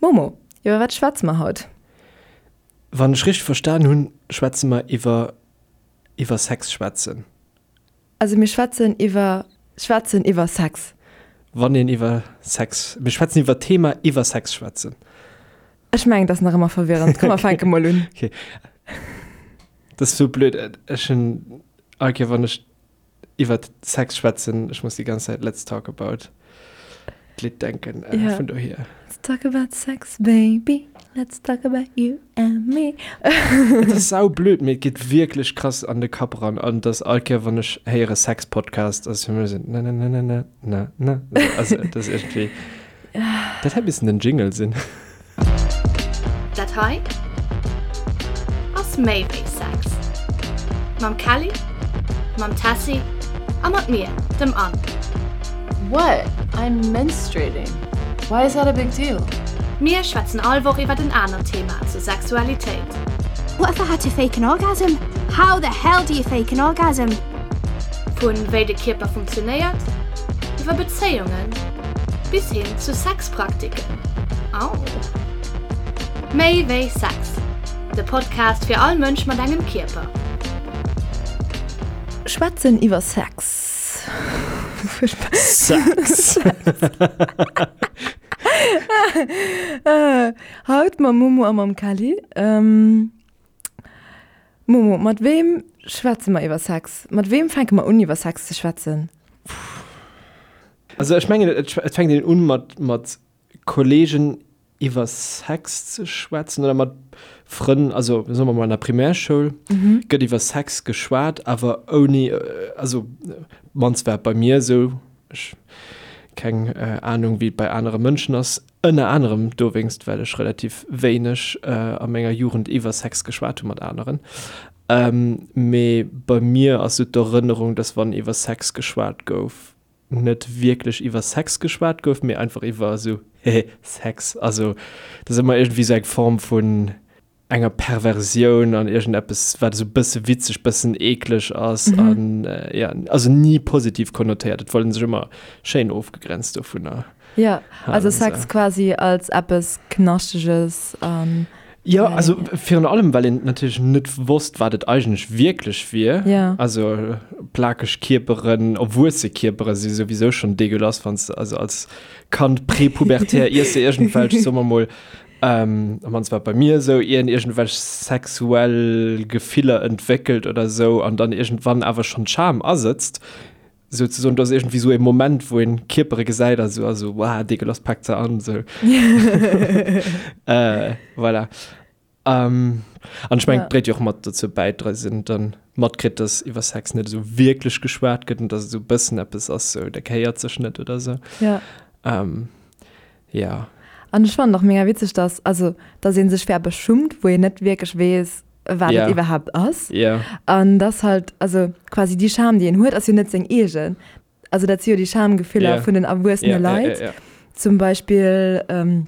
Momo, iwwer wat schwätze mer haut? Wann ech richteg verstan hunn, schwätze mer iwwer iwwer Sex schwätzen. Also mir schwätzen iwwer schwätzen iwwer Sex. Wann een iwwer Sex, mir schwätzen iwwer d'Thema iwwer Sex schwätzen. Ech mengen, et ass nach ëmmer verwirrend. Komm, mer fänke mol un. Okay. Dat ass sou blöd. Ech hunn all Kéier, wann ech iwwert Sex schwätzen, ech muss déi ganz Zäit Let's talk about d'Lidd denken, äh, Ja. vun dohier. Let's talk about sex, baby, let's talk about you and me. Et ass sau blöd, mee et geet wierklech krass an de Kapp eran an dass all Kéier wann ech héiere Sex-Podcast ass fir mech esou na na na na na na na also et ass iergendwéi dat hätt missen den Jingle sinn. Dat hei ass méi wéi Sex. Mam Kelly, mam Tessy a mat mir, dem Anne. What? I'm menstruating. Why is that a big deal? Mir schwätzen all Woch iwwert en anert Thema zur Sexualitéit. What if I had to fake an orgasm? How the hell do you fake an orgasm? Vun wéi de Kierper funktionéiert, iwwer Bezéiungen bis hin zu Sexpraktiken. Au! Méi wéi Sex, de Podcast fir all Mënsch mat engem Kierper. Schwätzen iwwer Sex. Sex! Haut mam Momo a mam Kelly. Momo, mat weem schwätze mer iwwer Sex? Mat weem fänke mer un iwwer Sex ze schwätzen? Also ech mengen et fänkt een un mat mat Kollegen iwwer Sex ze schwätzen oder mat Frënn, also soe mer mol an der Primärschoul gëtt iwwer Sex geschwat, awer ouni, also mannst war et bei mir esou, ech keng Anung wéi et bei anere Mënschen ass, ënner anerem dowéinst well ech relativ wéineg a menger Jugend iwwer Sex geschwat hu mat aneren. Mee bei mir ass esou d'Erënnerung, dass wann iwwer Sex geschwat gouf, net wierklech iwwer Sex geschwat gouf, mee einfach iwwer esou, hehe, Sex. Also dat ass ëmmer iergendwéi esou eng Form vun enger Perversioun an iergendeppes, wat esou bësse witzeg, bëssen eekleg ass an ja, also ni positiv konnotéiert. Et wollt een sech ëmmer schéin ofgegrenzt dovunner. Ja, also Sex quasi als eppes Knaschteges an. Jo, also virun allem, well een natierlech net wosst, wat et eigentlech wierklech wier. Ja. Also plakeg Kierperen, erwuesse Kierpere si souwisou schonn dégueulasse, wann s de also als Kand prepubertär iers de iergendwelch, soe mer mol, am mannst war et bei mir esou, ier een iergendwelch sexuell Gefiller entwéckelt oder esou an dann iergendwann awer schonn d'Scham asëtzt, souzesoen, do ass iergendwéi esou e Moment, wou een Kierpere gesäit a sou, a sou, Wow, dégueulasse, paakt se an, sou. Äh, voilà. Ähm, an ech mengen, Ja. dréit jo och mat dozou bäi, dass een dann matkritt, dass iwwer Sex net esou wierklech geschwat gëtt an dass et esou e bëssen eppes ass, sou, dat gehéiert sech net oder sou. Ja. Ähm, ja. An ech fannen och mega witzeg, dass, also, dass ee sech fir eppes schummt, wou een net wierklech weess, wat Ja. et iwwerhaapt ass. Ja. An dass halt, also quasi déi Scham, déi een huet, ass jo net seng eegen. Also dat si jo déi Schamgefiller Ja. vun den erwuessene Ja, ja, Leit. ja, ja. Zum Beispill ähm,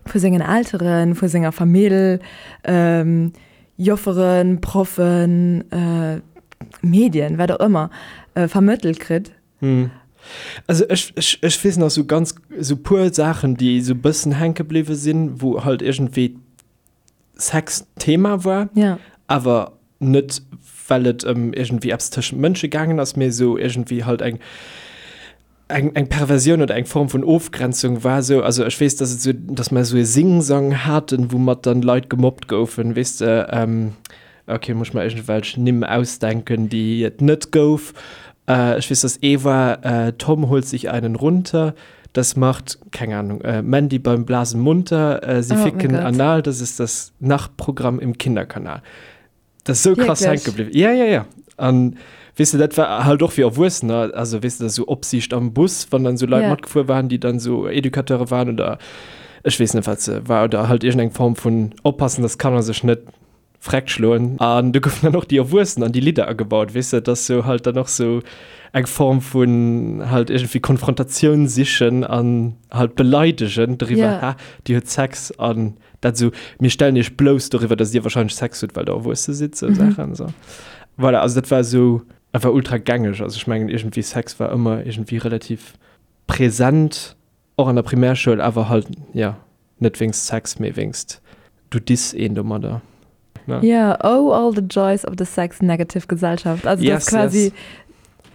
vu sengen Elteren, vu senger Famill, ähm, Jofferen, Proffen, äh, Medien, wat och ëmmer, äh, vermëttelt kritt. Hm. Also ech, ech, ech weess nach sou ganz, sou puer Saachen, déi sou bëssen hänke bliwwe sinn, wou halt iergendwéi Sex Thema war, Ja. awer net well et ëm iergendwéi eppes tëschent Mënsche gaangen ass, mee esou iergendwéi halt eng eng eng Perversioun oder eng Form vun Ofgrenzung war esou. Also ech weess, dass et esou, dass mer esou e Singsang haten, woumat dann Leit gemobbt goufen, weess de, ähm, okay, muss ech mer iergendwelch Nimm ausdenken, déi et net gouf. Äh, ech weess, dass ee war, äh, Tom holt sich einen runter. Das macht, keng Ahnung, äh, Mandy beim Blasen munter, äh, sie Oh mein ficken Gott. anal, das ist das Nachtprogramm im Kinderkanal. Das ist so krass Wirklich? hängen geblieben. Ja, ja, ja. An weess de, dat war halt och fir Erwuessener, also weess de, sou Opsiicht am Bus, wann dann sou Leit Ja. matgefuer waren, déi dann sou Educateure waren oder ech weess net, wat se war, oder halt iergendeng Form vun oppassen, dass d'Kanner sech net Freck schloen. An do goufen dann och déi Erwuessen an déi Lidder agebaut, weess de, dass sou halt dann och sou eng Form vun halt iergendwéi Konfrontatioun sichen an halt beleidegen doriwwer, Ja. ha, dir hutt Sex an dat sou, mir stellen iech blouss doriwwer, dass dir wahrscheinlech Sex hutt, well der Erwuesse sidd, sou Saachen, sou. Voilà, also dat war sou einfach ultra gängeg. Also ech mengen iergendwéi Sex war ëmmer iergendwéi relativ present, och an der Primärschoul, awer halt, ja. Net wéinst Sex, mee wéinst du diss een domadder. Ne? Ja, oh all the joys of the sex-negative Gesellschaft. Also yes, dass quasi yes.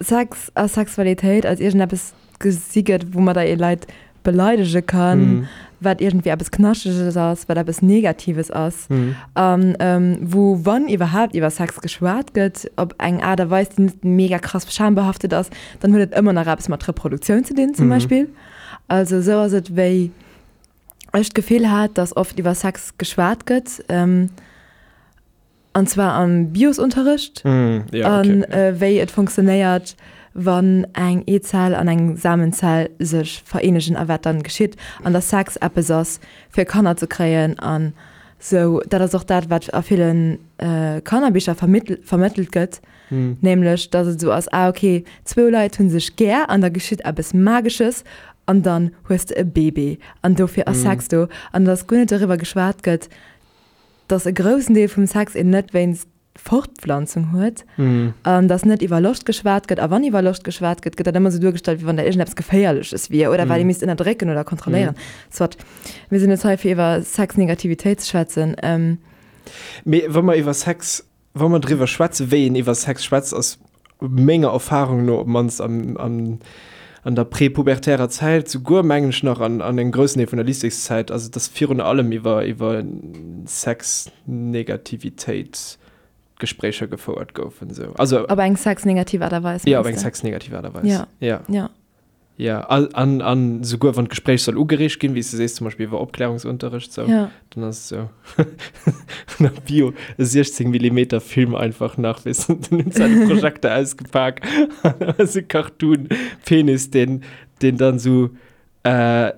Sex a Sexualitéit als iergendeppes gesi gëtt, woumadder ee Leit beleidege kann, mm. wat iergendwéi eppes Knascheges ass, wat eppes Negatives ass. Mm. An ähm, wou wann iwwerhaapt iwwer Sex geschwat gëtt, op eng Aart a Weis, déi net mega krass schambehaftet ass, dann huet et ëmmer nach eppes mat Reproduktioun ze dinn zum mm. Beispill. Also sou ass et wéi ech d'Gefill hat, dass oft iwwer Sex geschwat gëtt, an zwar am Biosunterricht, an wéi et funktionéiert, wann eng Eezell an eng Samenzell sech vereenegen a wat dann geschitt, an dass Sex eppes ass fir Kanner ze kréien an sou. Dat ass och dat, wat a ville Kannerbicher vermëttelt gëtt. Nämlech, dass et esou ass, ah ok, zwou Leit hu sech gär an da geschitt eppes Magesches an dann hues de e Baby an dofir ass Sex do. An dass guer net doriwwer geschwat gëtt, dass e groussen Deel vum Sex een net wéinst Fortpflanzung huet an dass net iwwer Loscht geschwat gëtt. A wann iwwer Loscht geschwat gëtt, gëtt dat ëmmer esou duergestallt, wéi wann dat iergendeppes Geféierleches wier oder wat ee misst ënnerdrécken oder kontrolléieren. Soit, mir sinn net hei fir iwwer Sexnegativitéit ze schwätzen. Mee wa mer iwwer Sex Wa mer driwwer schwätzen, wéi een iwwer Sex schwätzt, ass menger Erfahrung no, op d'mannst am, am, an der prepubertärer Zäit, souguer mengen ech nach an, an engem groussen Deel vun der Lycéeszäit, ass et, dass virun allem iwwer, iwwer Sexnegativitéit Gespréicher gefouert goufen, esou. Also. Op eng sexnegativ Aart a Weis, mengst de? Ja, op eng sexnegativ Aart a Weis. Ja. Ja. Ja. Ja, an, an souguer wann d'Gespréich soll ugereegt ginn, wéi s de sees, zum Beispill iwwer Opklärungsunterricht, sou, ja. dann ass et sou an der Bio e 16 Millimeter Film einfach nach, weess de, dann hunn se de Projekter ausgepak an da ass e Cartoon-Penis, deen, deen dann sou, äh,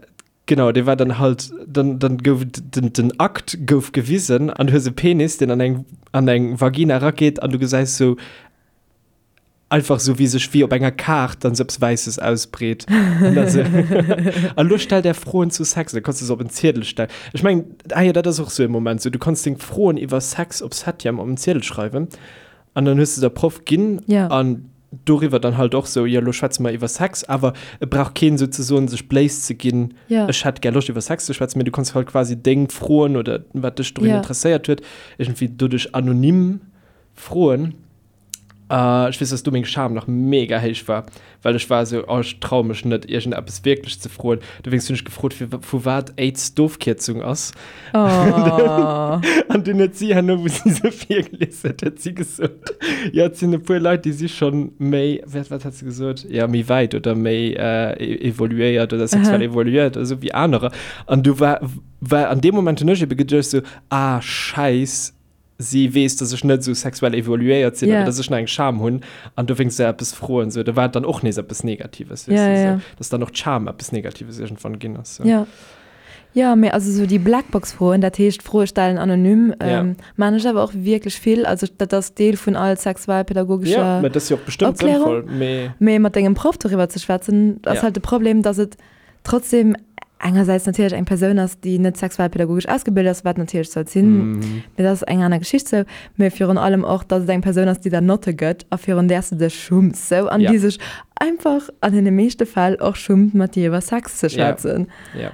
genau, dee war dann halt, dann, dann gouf den, den Akt gouf gewisen an du hues e Penis, deen an eng, an eng Vagina erageet an du gesäis sou Einfach sou wéi sech wéi op enger Kaart dann sou eppes Wäisses ausbreet. An dann sou, an lo stellt är Froen zu Sex. Da kanns du se op en Ziedel stellen. Ech mengen, ah jo, dat ass och sou e Moment, sou du kanns deng Froen iwwer Sex op Septième op en Ziedel schreiwen an dann hues de der Proff ginn Ja. an doriwwer dann halt och sou, jo lo schwätze mer iwwer Sex, awer et brauch keen souzesoen sech bléis ze ginn, Ja. ech hätt gär Loscht iwwer Sex ze schwätzen, mee du kanns halt quasi deng Froen oder wat dech dorun Ja. interesséiert huet, iergendwéi doduerch anonym froen. Ech weess, dass du meng Scham nach mega héich war, well ech war esou, oh, ech traue mech net, iergendeppes wierklech ze froen. Dowéinst hunn ech gefrot, fir vu wat AIDS d'Ofkierzung ass. Oh. An dunn huet si herno, wou si se virgelies huet, huet si gesot, jo, et sinn e puer Leit, déi si schonn méi, wat, wat hat se gesot? Jo, méi wäit oder méi evoluéiert oder sexuell evoluéiert oder esou wéi anerer. An du war, war an deem Moment hunn ech ebe geduecht esou, ah, Schäiss, si weess, dass ech net esou sexuell evoluéiert sinn yeah. oder dass ech nach eng Scham hunn an dowéinst se eppes froen. So, da war et dann och nees eppes Negatives. Yeah, du, yeah. so, dass dann och d'Scham eppes Negatives irgendwann ginn ass. So. Ja. Ja, mee also so déi Blackbox-Froen, dat heescht Froe stellen anonym, Ja. ähm, maan ech awer och wierklech vill. Also dat ass Deel vun all sexualpädagogescher Ja, mä dat ass jo och bestëmmt Opklärung. sënnvoll, mee Mee mat dengem Proff doriwwer ze schwätzen, ass Ja. halt de Problem, dass et trotzdem engersäits natierlech eng Persoun ass, déi net sexualpädagogesch ausgebilt ass, wat natierlech sollt sinn, mee dat ass eng aner Geschicht sou, mee virun allem och, datt et eng Persoun ass, déi der Notte gëtt a virun där s de dech schumms sou an Ja. déi sech einfach an deene meeschte Fäll och schummt, mat dir iwwer Sex ze Ja. schwätzen. Ja.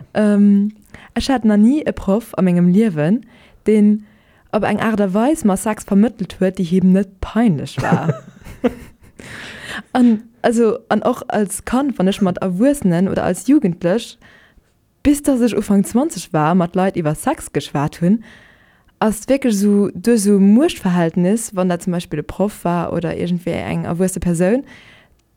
Ech hat nach ni e Proff a mengem Liewen, deen op eng Aart a Weis mer Sex vermëttelt huet, déi him net peinlech war. An also an och als Kand, wann ech mat Erwuessenen oder als Jugendlech, bis dass ech Ufank 20 war, mat Leit iwwer Sex geschwat hunn, ass wierklech esou duerch esou e Muechtverhältnis, wann dat zum Beispill e Proff war oder iergendwéi eng erwuesse Persoun,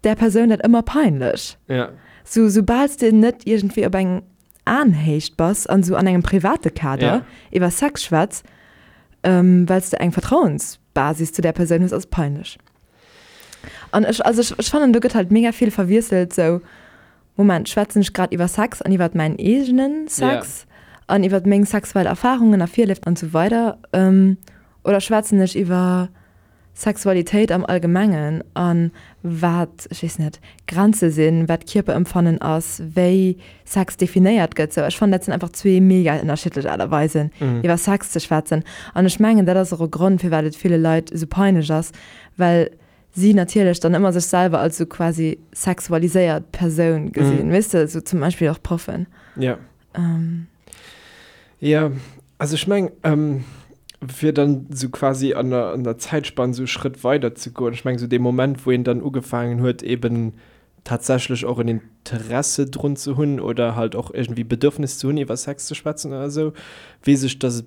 där Persoun dat ëmmer peinlech. Ja. Sou, soubal s de net iergendwéi op eng Aenhéicht bass an esou an engem private Kader Ja. iwwer Sex schwätz, well s de eng Vertrauensbasis zu där Persoun hues, ass et peinlech. An ech, also ech, ech fannen, do gëtt halt mega vill verwiesselt, sou, Moment, schwätzen ech grad iwwer Sex an iwwer mäin eegene Sex an iwwer meng sexuell Erfarungen a Virléift an esou weider, oder schwätzen ech iwwer Sexualitéit am Allgemengen a wat, ech weess net, Grenze sinn, wat Kierperempfannen ass, wéi Sex definéiert gëtt, sou. Ech fannen, dat sinn einfach zwee mega ënnerschiddlech Aart a Weisen, iwwer Sex ze schwätzen. An ech mengen, dat ass och e Grond, firwat et ville Leit esou peinlech ass, well si natierlech dann ëmmer sech selwer als sou quasi sexualiséiert Persoun gesinn, weess de, sou zum Beispill och Proffen. Jo. Jo, also ech meng, fir dann esou quasi an der, an der Zäitspann esou e Schrëtt weider ze goen, ech meng esou dee Moment, wou een dann ugefaangen huet eben tatsächlech och en Interesse drun ze hunn oder halt och iergendwéi Bedürfnis ze hunn iwwer Sex ze schwätzen oder esou, weess ech, dass et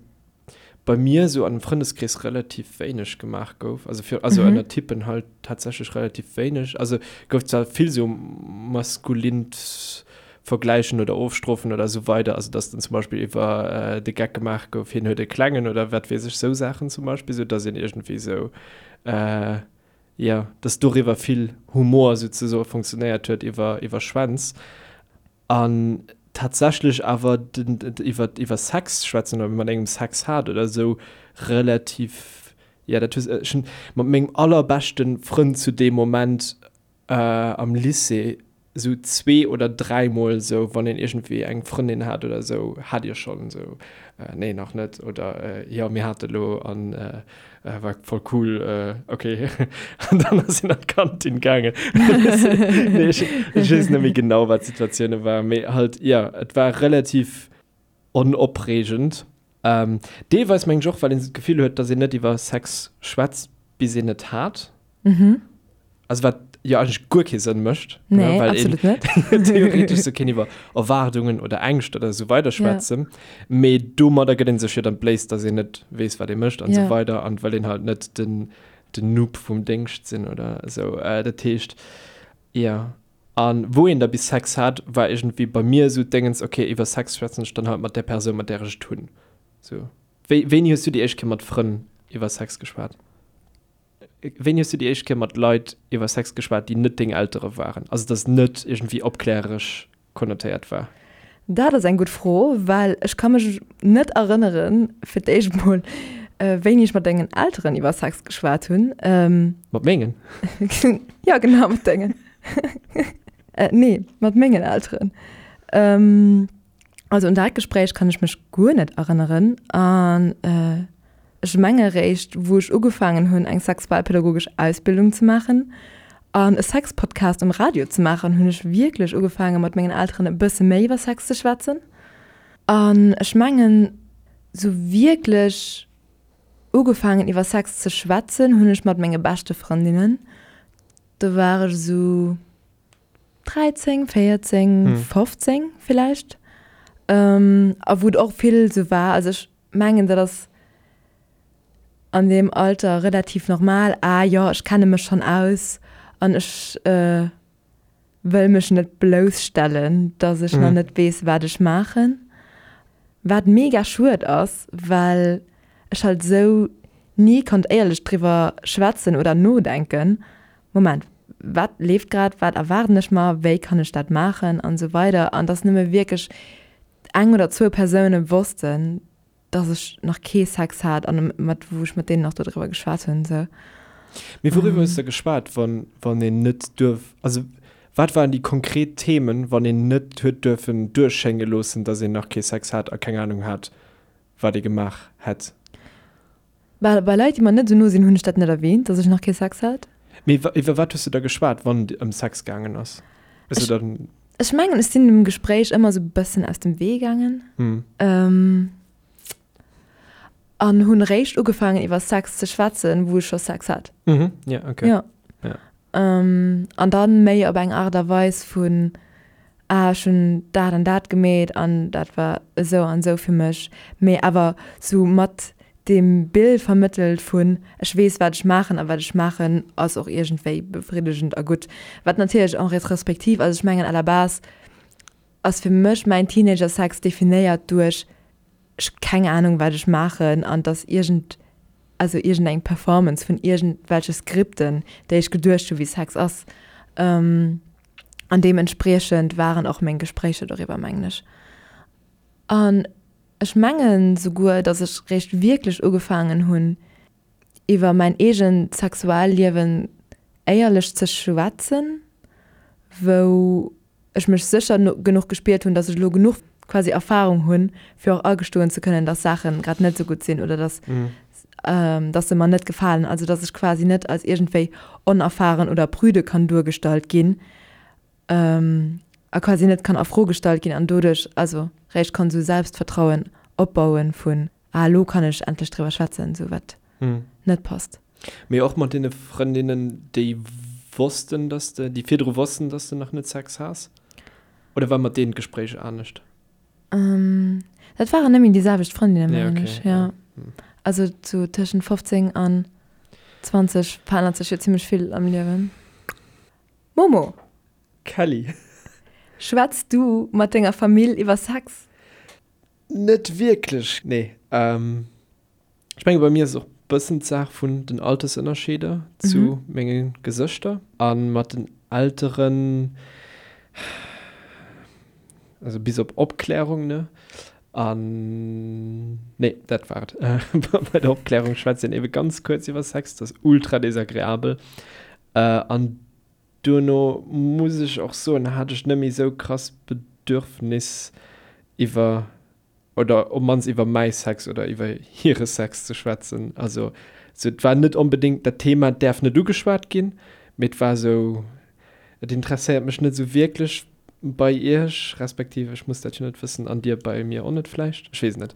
bei mir esou an dem Frëndeskrees relativ wéineg gemaach gouf, also fir, also ënner Typen halt tatsächlech relativ wéineg, also gouf zwar vill esou maskulint Vergläichen oder ofstrofen oder esou weider, also dass dann zum Beispill iwwer de Geck gemaach gouf, hien huet e klengen oder wat weess ech, esou Saachen zum Beispill, esou dass een iergendwéi esou, jo, dass doriwwer vill Humor souzesoe funktionéiert huet iwwer, iwwer Schwänz. An tatsächlech awer den, iwwer, iwwer Sex schwätzen oder mat engem Sex hat oder esou relativ, jo, dat hues, ech hunn mat mengem allerbeschte Frënd zu deem Moment am Lycée esou zwee oder dräimol esou, wann een iergendwéi eng Frëndin hat oder esou, hat Dir schonn? Esou, nee nach net oder jo mir hate lo an war voll cool, ok. An dann ass een an d'Kantin gaangen. Nee ech ech weess net méi genau wat d'Situatioune waren, mee halt jo et war relativ onopreegend. Deelweis mengen ech och well een esou d'Gefill huet, datt een net iwwer Sex schwätzt bis een et hat. Mhm. Also wat jo eigentlech guer kee Sënn mécht. Nee, ne, well absolut net. Theoretesch sou kéint iwwer Erwaardungen oder Ängscht oder esou weider schwätzen. Ja. Mee domadder gëtt een sech jo dann d'Bléis, dass een net weess, wat ee mécht an ja. esou weider an well een halt net den, den Noob vum Déngscht sinn oder esou. Äh, dat heescht, ja. An wou een da bis Sex hat, war iergendwéi bei mir esou d'Déngens, okay, iwwer Sex schwätzen ech dann halt mat där Persoun, mat där ech et hunn. Sou. Wéi, wéini hues du déi éischt Kéier mat Frënn iwwer Sex geschwat? Wéini hues du déi éischt Kéier mat Leit iwwer Sex geschwat, déi net deng Eltere waren? Also dass net iergendwéi opkläreresch konnotéiert war? Dat ass eng gutt Fro, well ech ka mech net erënneren, fir d'éischt mol, wéini ech mat dengen Elteren iwwer Sex geschwat hunn. Mat mengen? Jo, genau, mat dengen. Nee, mat mengen Elteren. Also un dat Gespréich kann ech mech guer net erënneren. An ech menge réischt, wou ech ugefaangen hunn, eng sexualpädagogesch Ausbildung ze maachen an e Sexpodcast um Radio ze maachen, hunn ech wierklech ugefaange mat mengen Elteren e bësse méi iwwer Sex ze schwätzen. An ech mengen, sou wierklech ugefaangen iwwer Sex ze schwätzen hunn ech mat menge beschte Frëndinnen. Do war ech esou 13, 14, 15 villäicht. A wou et och vill esou war, also ech mengen dat ass an deem Alter relativ normal, ah jo, ech kenne mech schonn aus an ech wëll mech net blousstellen, datt ech nach net weess wat ech maachen. Wat mega schued ass, well ech halt esou ni konnt éierlech driwwer schwätzen oder nodenken, Moment, wat leeft grad, wat erwaarden ech mer, wéi kann ech dat maachen an esou weider an dass nëmme wierklech eng oder zwou Persoune wossten, dass ech nach kee Sex hat an mat wou ech mat deenen och dodriwwer geschwat hunn esou. Mee wouriwwer hues de geschwat, wann wann een net duerf, also wat waren déi konkret Themen, wann een net huet duerfen duerchschénge loossen, dass een nach kee Sex hat a keng Anung hat, wat ee gemaach hätt? Bei, bei Leit, déi mer net esou no sinn, hunn ech dat net erwähnt, dass ech nach kee Sex hat. Mee iwwer wat hues du da geschwat, wann et ëm Sex gaangen ass? Hues du dann. Ech mengen, ech sinn dem Gespréich ëmmer esou e bëssen aus dem Wee gaangen. Hm. An hunn eréischt ugefaangen, iwwer Sex ze schwätzen, wou ech scho Sex hat. Mhm, ja, okay. Ja. Ja. An dann méi op eng Aart a Weis vun, ah ech hunn dat an dat gemeet an dat war esou an esou fir mech, mee awer sou mat deem Bild vermëttelt vun ech weess wat ech maachen a wat ech maachen ass och iergendwéi befriddegend a gutt. Wat natierlech en rétrospective, also ech mengen à la base ass fir mech mäin Teenager-Sex definéiert duerch ech hu keng Ahnung wat ech maachen an dass iergend also iergendeng Performance vun iergendwelche Skripten déi ech geduecht hu wéi Sex ass. An deementspriechend waren och meng Gespréicher doriwwer, mengen ech. An ech mengen souguer, datt ech réischt wierklech ugefaangen hunn, iwwer mäin eegent Sexualliewen éierlech ze schwätzen, wou ech mech sécher genuch gespiert hunn, datt ech elo genuch quasi Erfarung hunn, fir och agestoen ze kënnen, datt Saache grad net esou gutt sinn oder datt datt se mer net gefalen, also datt ech quasi net als iergendwéi onerfahren oder prüde kann duergestallt ginn a quasi net kann a Fro gestallt ginn an doduerch also réischt kann esou Selbstvertrauen. Opbauen vun, ah elo kann ech endlech driwwer schwätzen, sou wat net passt. Mee och mat deene Frëndinnen, déi wossten, dass de, déi virdru wossten, dass de nach net Sex has? Oder war mat deenen d'Gespréich anescht? Dat waren net méi déi selwecht Frëndinnen, mengen ech, jo. Also sou tëschent 15 an 20 verännert sech jo zimmlech vill am Liewen. Momo! Kelly! Schwätz du mat denger Famill iwwer Sex? Net wierklech, nee. Ech menge bei mir ass et och bëssen d'Saach vun den Altersënnerscheeder zu menge Gesëschter. A mat den Elteren, also bis op Opklärung, ne? An, nee, dat war et. Bei der Opklärung schwätzt een ebe ganz kuerz iwwer Sex, dat ass ultra desagreabel. An duerno muss ech och soen, hat ech net méi esou krass Bedürfnis iwwer oder op mannst iwwer mäi Sex oder iwwer hire Sex ze schwätzen. Also sou et war net onbedéngt dat Thema däerf net ugeschwat ginn, mee et war sou et interesséiert mech net sou wierklech bei iech, respektiv ech muss dat jo net wëssen an dir bei mir och net vläicht, ech weess et net.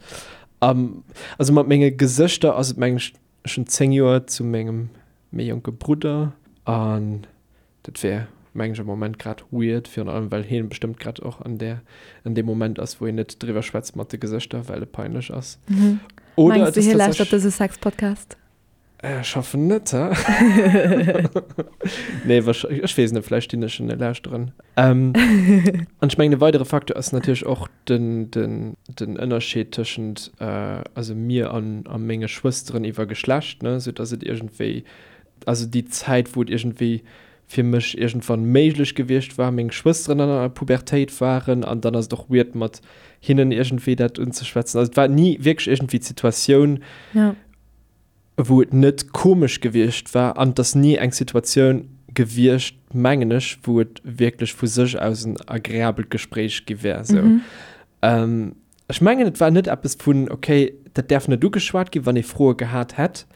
Also mat menge Gesëschter ass et mengen ech, ech hunn 10 Joer zu mengem méi jonke Brudder an Dat wär, mengen ech, am Moment grad weird, virun allem well hien bestëmmt grad och an där, an deem Moment ass, wou een net driwwer schwätzt mat de Gesëschter, well et peinlech ass. Oder Mengs et du, ass hie lauschtert dëse Sex-Podcast? Ech hoffen net, hä? Nee, wahrsch-, ech weess net, vläicht dinn ech en e lauschteren. An ech mengen, e weidere Facteur ass natierlech och den, den, den Ënnerscheed tëschent, also mir an, a menge Schwësteren iwwer Geschlecht, ne, soudass et iergendwéi also déi Zäit, wou et iergendwéi fir mech iergendwann méiglech gewiescht war, meng Schwësteren an der Pubertéit waren an dann ass et och weird mat hinnen iergendwéi dat unzeschwätzen. Also et war ni wierklech iergendwéi d'Situatioun, ja. wou et net komesch gewiescht war an et ass ni eng Situatioun gewiescht, mengen ech, wou et wierklech vu sech aus en agreabelt Gespréich gi wär. Sou. Mhm. Ähm, ech mengen, et war net eppes vun, okay, dat däerf net ugeschwat ginn, wann ee Froe gehat hätt.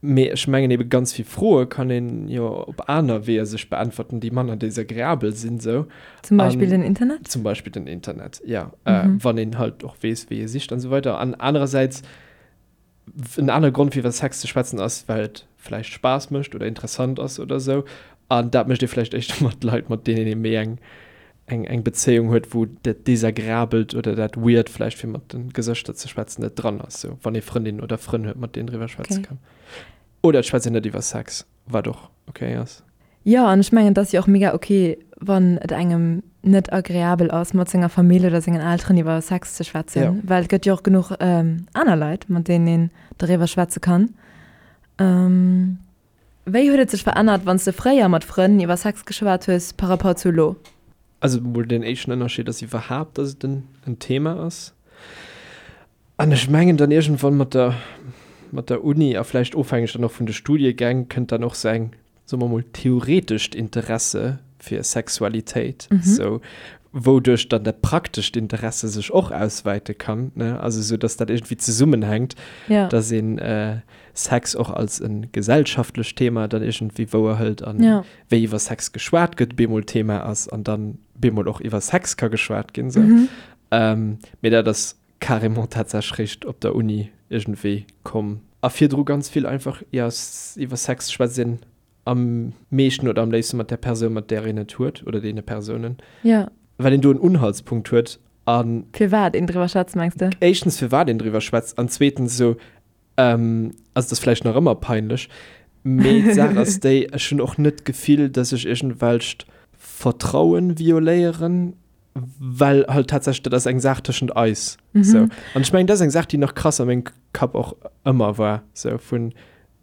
Mee ech mengen ebe ganz vill Froe kann een jo op aner Weeër sech beäntwerten, déi manner desagreabel sinn esou. Zum Beispill den Internet? Zum Beispill den Internet, ja. Wann een halt och weess, wéi ee sicht an esou weider. An anerersäits, en anere Grond fir iwwer Sex ze schwätzen ass, well et vläicht Spaass mécht oder interessant ass oder esou. An dat mécht ee vläicht éischter mat Leit, mat deenen ee méi eng eng eng Bezéiung huet, wou dat Desagreabelt oder dat Weird vläicht fir mat de Gesëschter ze schwätzen net dran ass, sou wann ee Frëndinnen oder Frënn huet, mat deenen driwwer schwätze Okay. kann. Oder et schwätzt een net iwwer Sex, wat och okay ass. Jo, an ech mengen, et ass jo och mega okay, wann et engem net agreabel ass, mat senger Famill oder sengen Elteren iwwer Sex ze schwätzen, Ja. well et gëtt jo och genuch aner Leit, mat deenen een doriwwer schwätze kann. Wéi huet et sech verännert, wann s de fréier mat Frënn iwwer Sex geschwat hues par rapport zu elo? Also mol den éischten Ënnerscheed ass iwwerhaapt, dass et en Thema ass. An ech mengen dann iergendwann mat der, mat der Uni a vläicht ofhängeg dann och vun de Studiegäng kënnt dann och sou eng, soe mer mol, theoretescht Interesse fir Sexualitéit, sou, wouduerch dann dat praktescht Interesse sech och auswäite kann, ne? Also sou, dass dat iergendwéi zesummenhänkt, dass een Sex och als e gesellschaftlecht Thema dann iergendwéi wouerhëlt an ja. wéi iwwer Sex geschwat gëtt, bemol Thema ass an dann bemol och iwwer Sex ka geschwat ginn. Sou. Mhm. Ähm, mee dat ass carrément tatsächlech réischt op der Uni iergendwéi komm. A virdru ganz vill einfach, ja, iwwer Sex schwätzt een am meeschten oder am léifste mat där Persoun, mat där een et huet oder deene Persounen. Ja. Well een do en Unhaltspunkt huet an. Firwat een driwwer schwätzt, mengs de? Éischtens firwat een driwwer schwätzt an zweetens esou, Ähm, also et ass vläicht nach ëmmer peinlech, mee d'Saach ass déi, ech hunn och net d'Gefill, dass ech iergendwelcht Vertrauen violéieren, well halt tatsächlech dat ass eng Saach tëschent eis. Mhm. Sou. An ech mengen, dat ass eng Saach, déi nach krass a mengem Kapp och ëmmer war, sou vun,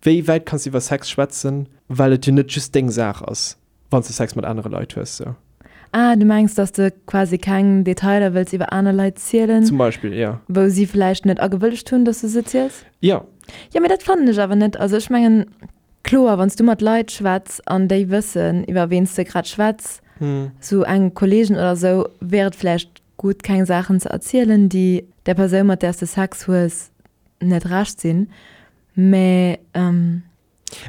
wéi wäit kanns du iwwer Sex schwätzen, well et jo net just deng Saach ass. Wann s de Sex mat anere Leit hues, sou. Ah, du mengs, dass de quasi keng Detailer wëlls iwwer aner Leit zielen? Zum Beispill, jo. Wou si vläicht net agewëllegt hunn, dass du se ziels? Jo. Jo, mee dat fannen ech awer net. Also ech mengen, kloer, wann s du mat Leit schwätz an déi wëssen, iwwer ween s de grad schwätz, sou eng Kolleegen oder sou, wär et vläicht gutt, keng Saachen ze erzielen, déi där Persoun, mat där s de Sex hues, net recht sinn. Mä.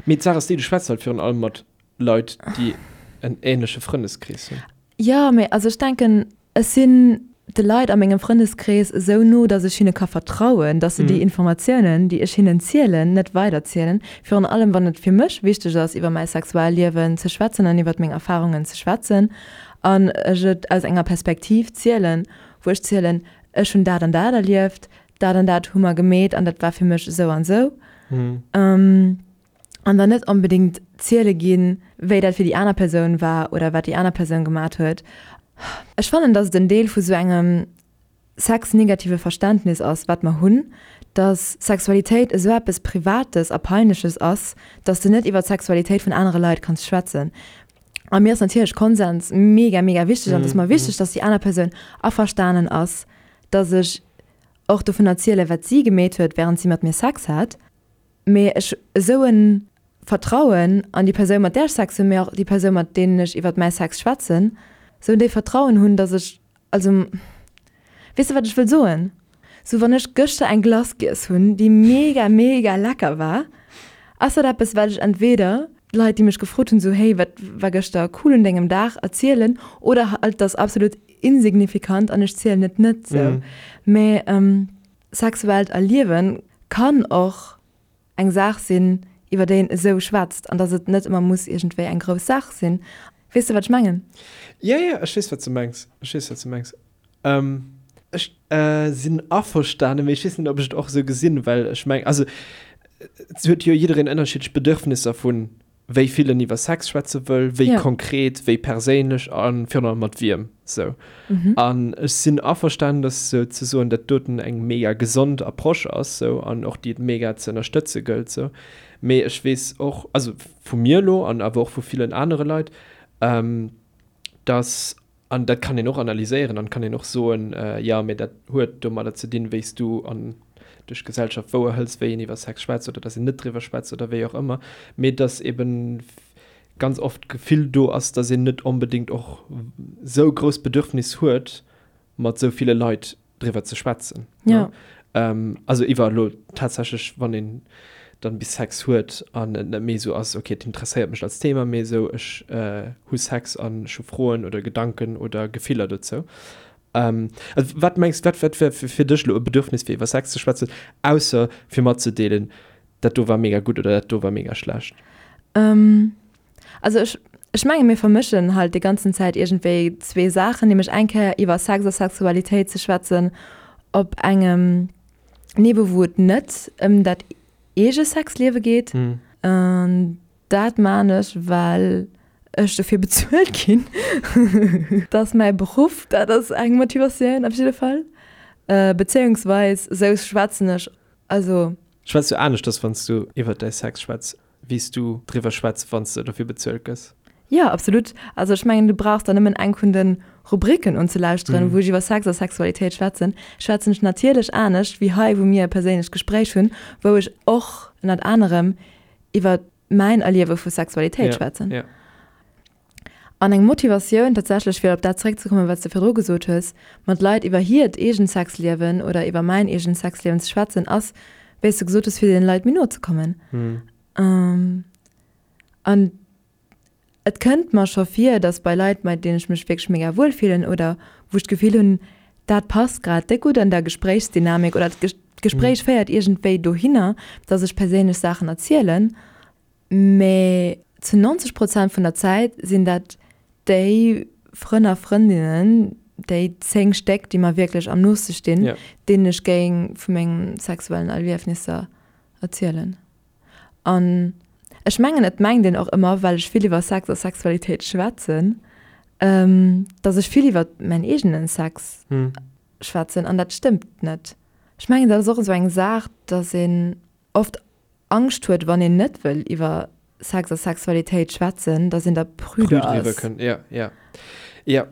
Mee d'Saach ass déi, du schwätz halt virun allem mat Leit, déi en ähnleche Frëndeskrees hunn. Jo, mee also ech denken, ech sinn. de Leit a mengem Frëndeskrees esou no, dass ech hinne ka vertrauen, dass se déi Informatiounen, déi ech hinnen zielen, net weiderzielen. Virun allem, wann et fir mech wichteg ass, iwwer mäi Sexualliewen ze schwätzen an iwwer meng Erfarungen ze schwätzen an ech et aus enger Perspektiv zielen, wou ech zielen, ech hunn dat an dat erlieft, dat an dat hu mer gemeet an dat war fir mech esou an esou. An dann net onbedéngt ziele ginn, wéi dat fir déi aner Persoun war oder wat déi aner Persoun gemat huet. Ech fannen, dass et en Deel vu sou engem sexnegative Verständnis ass, wat mer hunn, dass Sexualitéit esou eppes Privates a Peinleches ass, dass de net iwwer d'Sexualitéit vun anere Leit kanns schwätzen. A mir ass natierlech Konsens mega, mega wichteg an et ass mer wichteg, dass déi aner Persoun averstanen ass, dass ech och dovun erzielen, wat si gemeet huet, wärend si mat mir Sex hat. Mee ech esou e Vertrauen an déi Persoun, mat där ech Sex hunn, mee och déi Persoun, mat deenen ech iwwert mäi Sex schwätzen, esou en déif Vertrauen hunn, dass ech, also, weess de, wat ech wëll soen? Sou, wann ech gëschter eng Glace giess hunn, déi mega, mega lecker war, ass dat eppes, wat ech entweder Leit, déi mech gefrot hunn, sou, hey, wat war gëschter cool un dengem Dag, erzielen, oder halt, et ass absolut insignifikant an ech zielen et net, sou. Mee sexuellt Erliewen kann och eng Saach sinn, iwwer déi een esou schwätzt, an dass et net ëmmer muss iergendwéi eng grouss Saach sinn. Weess de, wat ech mengen? Jo, jo, ech weess, wat s de mengs. Ech weess, wat s de mengs. Ech sinn averstanen, mee ech weess net, ob ech et och esou gesinn, well ech mengen, also et huet jo jiddereen ënnerschiddlech Bedürfnisser vun wéi vill en iwwer Sex schwätze wëll, wéi ja. konkret, wéi perséinlech a virun allem mat wiem. Sou. Mhm. An ech sinn averstanen, dass sou ze soen, dat doten eng mega gesond Approche ass sou an och déi et mega ze ënnerstëtze gëllt sou. Mee ech weess och, also vu mir elo an awer och vu villen anere Leit, ähm, dass An dat kann een och analyséieren an kann een och soen, jo, mee dat huet domadder ze dinn, wéi s du an duerch d'Gesellschaft wouerhëls, wéi een iwwer Sex schwätzt oder dass een net driwwer schwätzt oder wéi och ëmmer. Mee dass eben ganz oft d'Gefill do ass, dass een net onbedéngt och sou grouss Bedürfnis huet, mat sou ville Leit driwwer ze schwätzen. Ja. Ähm, also iwwer elo tatsächlech, wann een dann bis Sex huet an et net méi esou ass, okay, et interesséiert mech als Thema, mee esou ech äh, hu Sex an ech hu Froen oder Gedanken oder Gefiller dozou. Ähm, also wat mengs, wat, wat wär fir dech elo e Bedürfnis fir iwwer Sex ze schwätzen, ausser fir matzedeelen, dat do war mega gutt oder dat do war mega schlecht? Ähm, Also ech, ech menge mir vermëschen halt déi ganzen Zäit iergendwéi zwee Saachen, nämlech eng Kéier iwwer Sex a Sexualitéit ze schwätzen op engem Niveau, wou et net ëm dat eege Sexliewe geet. An dat maan ech, well ech dofir bezuelt ginn. Dat ass mäi Beruff, dat ass eng Motivatioun op jidde Fall. Bezéiungsweis esou schwätzen ech, also. Schwätz du aneschters, wann s du iwwer däi Sex schwätz? wéi s du driwwer schwätz, wann s de dofir bezuelt gëss. Jo, absolut. Also ech mengen, du brauchs der nëmmen eng vun de Rubriken unzelauschteren, wou ech iwwer Sex a Sexualitéit schwätzen. Schwätzen ech natierlech anescht wéi hei, wou mir e perséinlecht Gespréich hunn, wou ech och ënnert anerem iwwer mäin Erliewe vu Sexualitéit schwätzen. An eng Motivatioun tatsächlech, fir op dat zeréckzekommen, wat s de virdru gesot hues, mat Leit iwwer hiert eegent Sexliewen oder iwwer mäin eegent Sexliewen ze schwätzen, ass, wéi s de gesot hues, fir deene Leit méi no ze kommen. An et kënnt mer scho vir, datt bei Leit, mat deenen ech mech wierklech mega wuel fillen oder wou ech d'Gefill hunn, dat passt grad déck gutt an der Gespréichsdynamik oder d'Gespréich féiert iergendwéi dohinner, datt ech perséinlech Saachen erzielen, Mee zu 90 Prozent vun der Zäit sinn dat déi Frënn a Frëndinnen, déi 10 Stéck, déi mer wierklech am nooste stinn, yeah. deenen ech géing vu mengem sexuellen Erliefnisser erzielen. An ech mengen, et mengt een och ëmmer, well ech vill iwwer Sex a Sexualitéit schwätzen, ähm, dass ech vill iwwer mäin eegenen Sex hm. schwätzen. An dat stëmmt net. Ech mengen, dat ass och esou eng Saach, dass een oft Angscht huet, wann een net wëll iwwer Sex a Sexualitéit schwätzen, dass een da prüde ass. Ja, ja. Ja.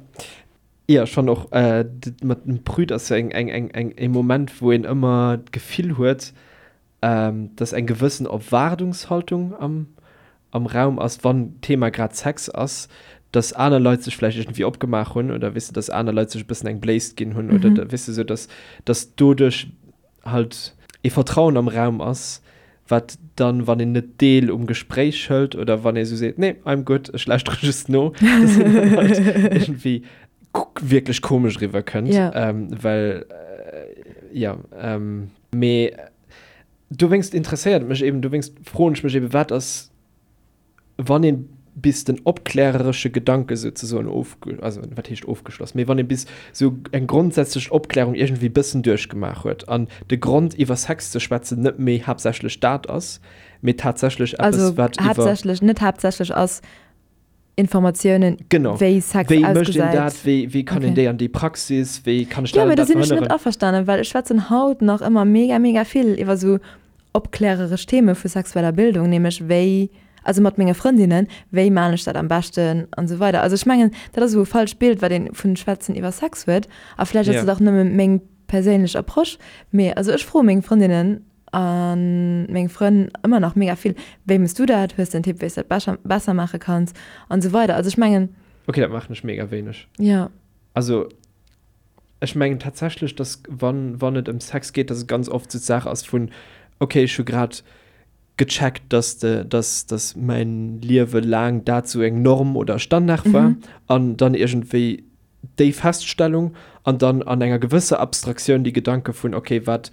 Ja, ech fannen och, mat dem prüd ass sou eng, eng, eng, eng, e Moment, wou een ëmmer d'Gefill huet, dass eng gewëssen Erwaardungshaltung am, am Raum ass, wann d'Thema grad Sex ass, dass aner Leit sech vläicht iergendwéi opgemaach hunn oder, weess de, dass aner Leit sech e bëssen eng Bléist ginn hunn oder, weess de, sou dass, dass doduerch halt ee Vertrauen am Raum ass, wat dann, wann een net Deel um Gespréich hëlt oder wann ee sou seet, nee, I'm good, ech lauschtere just no, dass een dann halt iergendwéi. wierklech komesch eriwwer kënnt, Ja. well jo, mee dowéinst interesséiert et mech eben, dowéinst froen ech mech eben, wat ass, wann ee bis den opkläreresche Gedanke souzesoen ofge, also wat heescht ofgeschloss, mee wann ee bis sou eng grondsätzlech Opklärung iergendwéi bëssen duerchgemaach huet an de Grond iwwer Sex ze schwätzen net méi haaptsächlech dat ass, mee tatsächlech eppes Also wat iwwer. haaptsächlech, net haaptsächlech ass Informatiounen, Genau. wéi Sex Wéi mécht een ausgesäit. dat? Wéi, wéi kann een Okay. déi an déi Praxis? Wéi kann ech Jo, dat mee an do dat sinn ech net verhënneren? averstanen, well ech schwätzen haut nach ëmmer mega, mega vill iwwer sou opkläreresch Theme vu sexueller Bildung, nämlech wéi, also mat menge Frëndinnen, wéi maan ech dat am beschten an esou weider. Also ech mengen, dat ass esou e falscht Bild, wat een vun Schwätzen iwwer Sex huet. A vläicht ass Ja. dat och nëmme meng perséinlech Approche, mee also ech froe meng Frëndinnen a meng Frënn ëmmer nach mega vill, wéi mëss du dat, hues de en Tipp, wéi s dat bescher, besser maache kanns an esou weider. Also ech mengen. Okay, dat maachen ech mega wéineg. Ja. Also ech mengen tatsächlech, dass wann, wann et ëm Sex geet, dass et ganz oft sou d'Saach ass vun, okay, ech hu grad gecheckt, dass de, dass, dass mäin Liewe laang dat sou eng Norm oder Standard war an dann iergendwéi déi Feststellung an dann an enger gewësser Abstraktioun déi Gedanke vun, okay, wat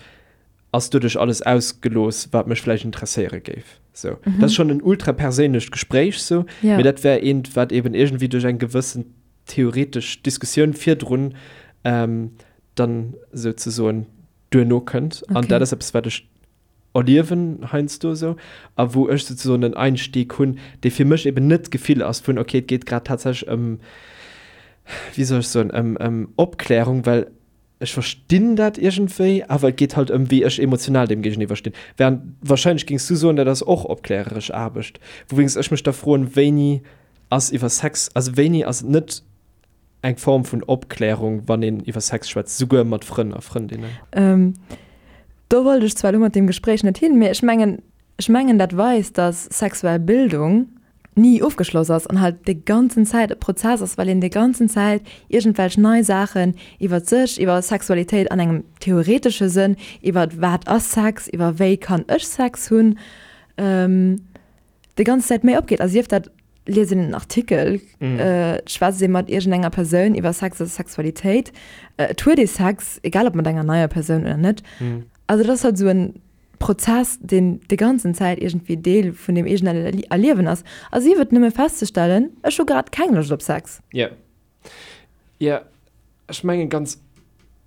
ass doduerch alles ausgelooss, wat mech vläicht interesséiere géif. Sou. Dat ass schonn en ultra perséinlecht Gespréich sou, Ja. mee dat wär eent, wat eben iergendwéi duerch eng gewëssen theoretesch Diskussioun virdrun dann souzesoen duerno kënnt. An dat ass eppes, wat ech erliewen heiansdo esou a wou ech souzesoen en Einstieg hunn, dee fir mech eben net d'Gefill ass vun, okay, et geet grad tatsächlech ëm, wéi soll ech soen, ëm, ëm Opklärung, well ech verstinn dat iergendwéi, awer et geet halt ëm, wéi ech emotional deem géigeniwwer stinn. Während wahrscheinlech géings du soen, dat ass och opkläreresch Aarbecht, wouwéinst ech mech da froen, wéini ass iwwer Sex, also wéini ass et net eng Form vun Opklärung, wann een iwwer Sex schwätzt, souguer mat Frënn a Frëndinnen? Do wollt ech zwar elo mat deem Gespréich net hin, mee ech mengen, ech mengen dat weist, dass sexuell Bildung ni ofgeschloss ass an halt déi ganzen Zäit e Prozess ass, well een déi ganzen Zäit iergendwelch nei Saachen iwwer sech, iwwer Sexualitéit an engem theoretesche Sënn, iwwer wat ass Sex, iwwer wéi kann ech Sex hunn, déi ganz Zäit méi opgeet. A sief dat liest een en Artikel, schwätzt ee mat iergendenger Persoun iwwer Sex a Sexualitéit, et huet ee Sex, egal ob mat enger neier Persoun oder net. Also dat ass halt esou en Prozess, deen déi ganzen Zäit iergendwéi Deel vun deem eegenen Erliewen ass. A sief et nëmme festzestellen, ech hu grad keng Loscht op Sex. Jo. Jo, ech mengen ganz,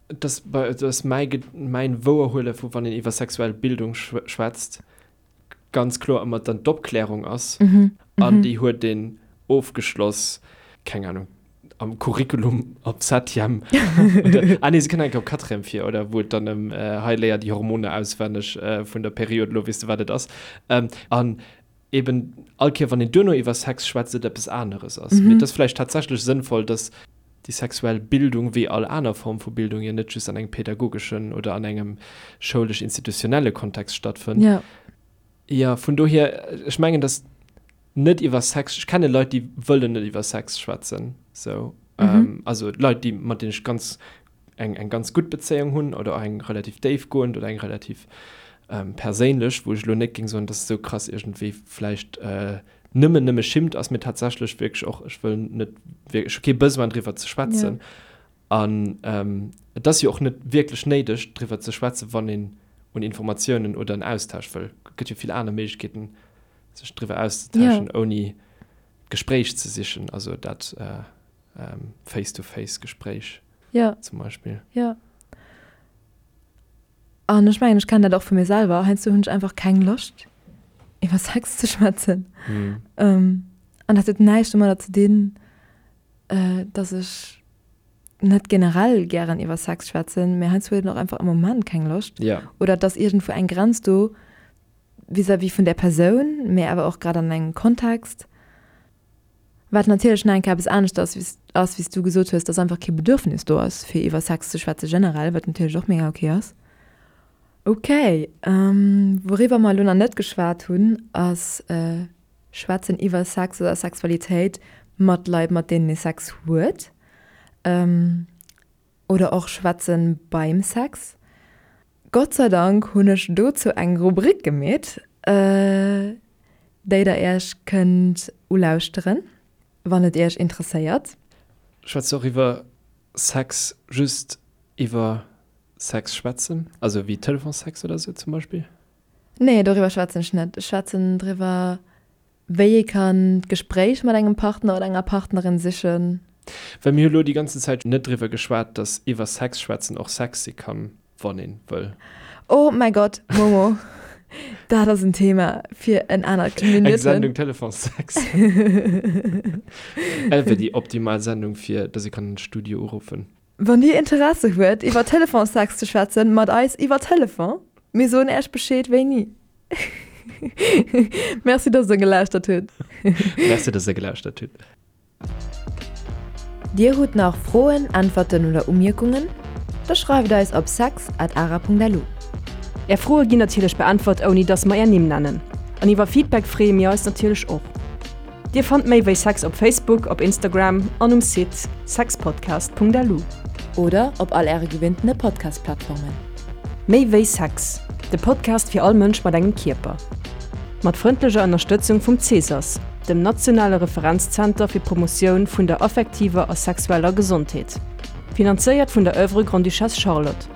dass dass mäi mäin Wouerhuele vu wann een iwwer sexuell Bildung schwätzt, ganz kloer ëmmer dann d'Opklärung ass an déi huet een ofgeschloss, keng Ahnung, am Curriculum op Septième oder, ah nee, se kënnt enke op Quatrième vir, oder wou et dann ëm hei léier déi Hormoner auswenneg vun der Period, elo weess de wat et ass. An eben all Kéier wann een duerno iwwer Sex schwätzt, et eppes aneres ass. Mee et ass vläicht tatsächlech sënnvoll, dass déi sexuell Bildung, wéi all aner Form vu Bildung, jo net just an engem pädagogeschen oder an engem schoulesch-institutionelle Kontext stattfënnt. Ja. Jo, vun dohier, ech mengen, dass net iwwer Sex, ech kenne Leit, déi wëllen net iwwer Sex schwätzen, sou. Also Leit, déi, mat deenen ech ganz, eng, eng ganz gutt Bezéiung hunn oder och eng relativ déifgoend oder eng relativ perséinlech, wou ech elo net géing soen, dass esou krass iergendwéi vläicht Nëmmen nëmme schimmt ass mir tatsächlech wierklech och, ech wëll net wierklech, ech hu kee Besoin driwwer ze schwätzen. An et ass jo och net wierklech néideg driwwer ze schwätzen, wann een un Informatiounen oder en Austausch wëll. Et gëtt jo vill aner Méiglechkeeten sech driwwer auszetauschen, ouni d'Gespréich ze sichen, also dat Face-to-face-Gespréich zum Beispill. Jo. An ech mengen, ech kennen dat och vu mir selwer, heiansdo hunn ech einfach keng Loscht, iwwer Sex ze schwätzen. An dat huet näischt domadder ze dinn, dass ech net generell gären iwwer Sex schwätzen, mä heiansdo huet een och einfach am Moment keng Loscht. Oder et ass iergendwou eng Grenz do vis-à-vis vun där Persoun, mä awer och grad an engem Kontext. Wat natierlech nach eng Kéier eppes anescht ass, wéi ass, wéi s du gesot hues, dass einfach kee Bedürfnis do ass, fir iwwer Sex ze schwätze generell, wat natierlech och mega ok ass. Ok, wouriwwer mer elo nach net geschwat hunn, ass schwätzen iwwer Sex oder Sexualitéit mat Leit, mat deenen ee Sex huet. Oder och schwätzen beim Sex. Gott sei Dank hunn ech dozou eng Rubrik gemeet, déi der iech kënnt ulauschteren, wann et iech interesséiert. Schwätzt och iwwer. Sex just iwwer Sex schwätzen? Also wéi Telefonsex oder sou zum Beispill? Nee, doriwwer schwätzen ech net. Ech schwätzen driwwer, wéi ee kann d'Gespréich mat engem Partner oder enger Partnerin sichen. Well mir hu lo déi ganzen Zäit net driwwer geschwat, dass iwwer Sex schwätzen och Sex si kann, wann een wëll. Oh mäi Gott, Momo, dat ass en Thema fir en anert Eng Sendung Telefonsex. Dat wär déi optimal Sendung fir dass ee kann an de Studio uruffen. Wann dir Interesse huet iwwer Telefonsex ze schwätzen mat eis iwwer Telefon, mir soen äech Bescheed wéini. Merci dass der gelauschtert hutt. Merci dass der gelauschtert hutt. Dir hutt nach Froen, Äntwerten oder Umierkungen? Da schreift eis op sex at ara.lu. Är Froe ginn natierlech beäntwert ouni dass mer är Nimm nennen. An iwwer Feedback freeë mir eis natierlech och. Dir fannt méi wéi Sex op Facebook, op Instagram an um Site sexpodcast.lu. Oder op all äre gewinntene Podcast-Plattformen. Méi wéi Sex, de Podcast fir all Mënsch mat engem Kierper. Mat frëndlecher Ënnerstëtzung vum CSAS, dem nationale Referenzzenter fir d'Promotioun vun der affektiver a sexueller Gesondheet. Finanzéiert vun der Oeuvre Grande-Duchesse Charlotte.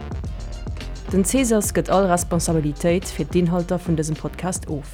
Den CSAS gëtt all Responsabilitéit fir d'Inhalter vun dësem Podcast of.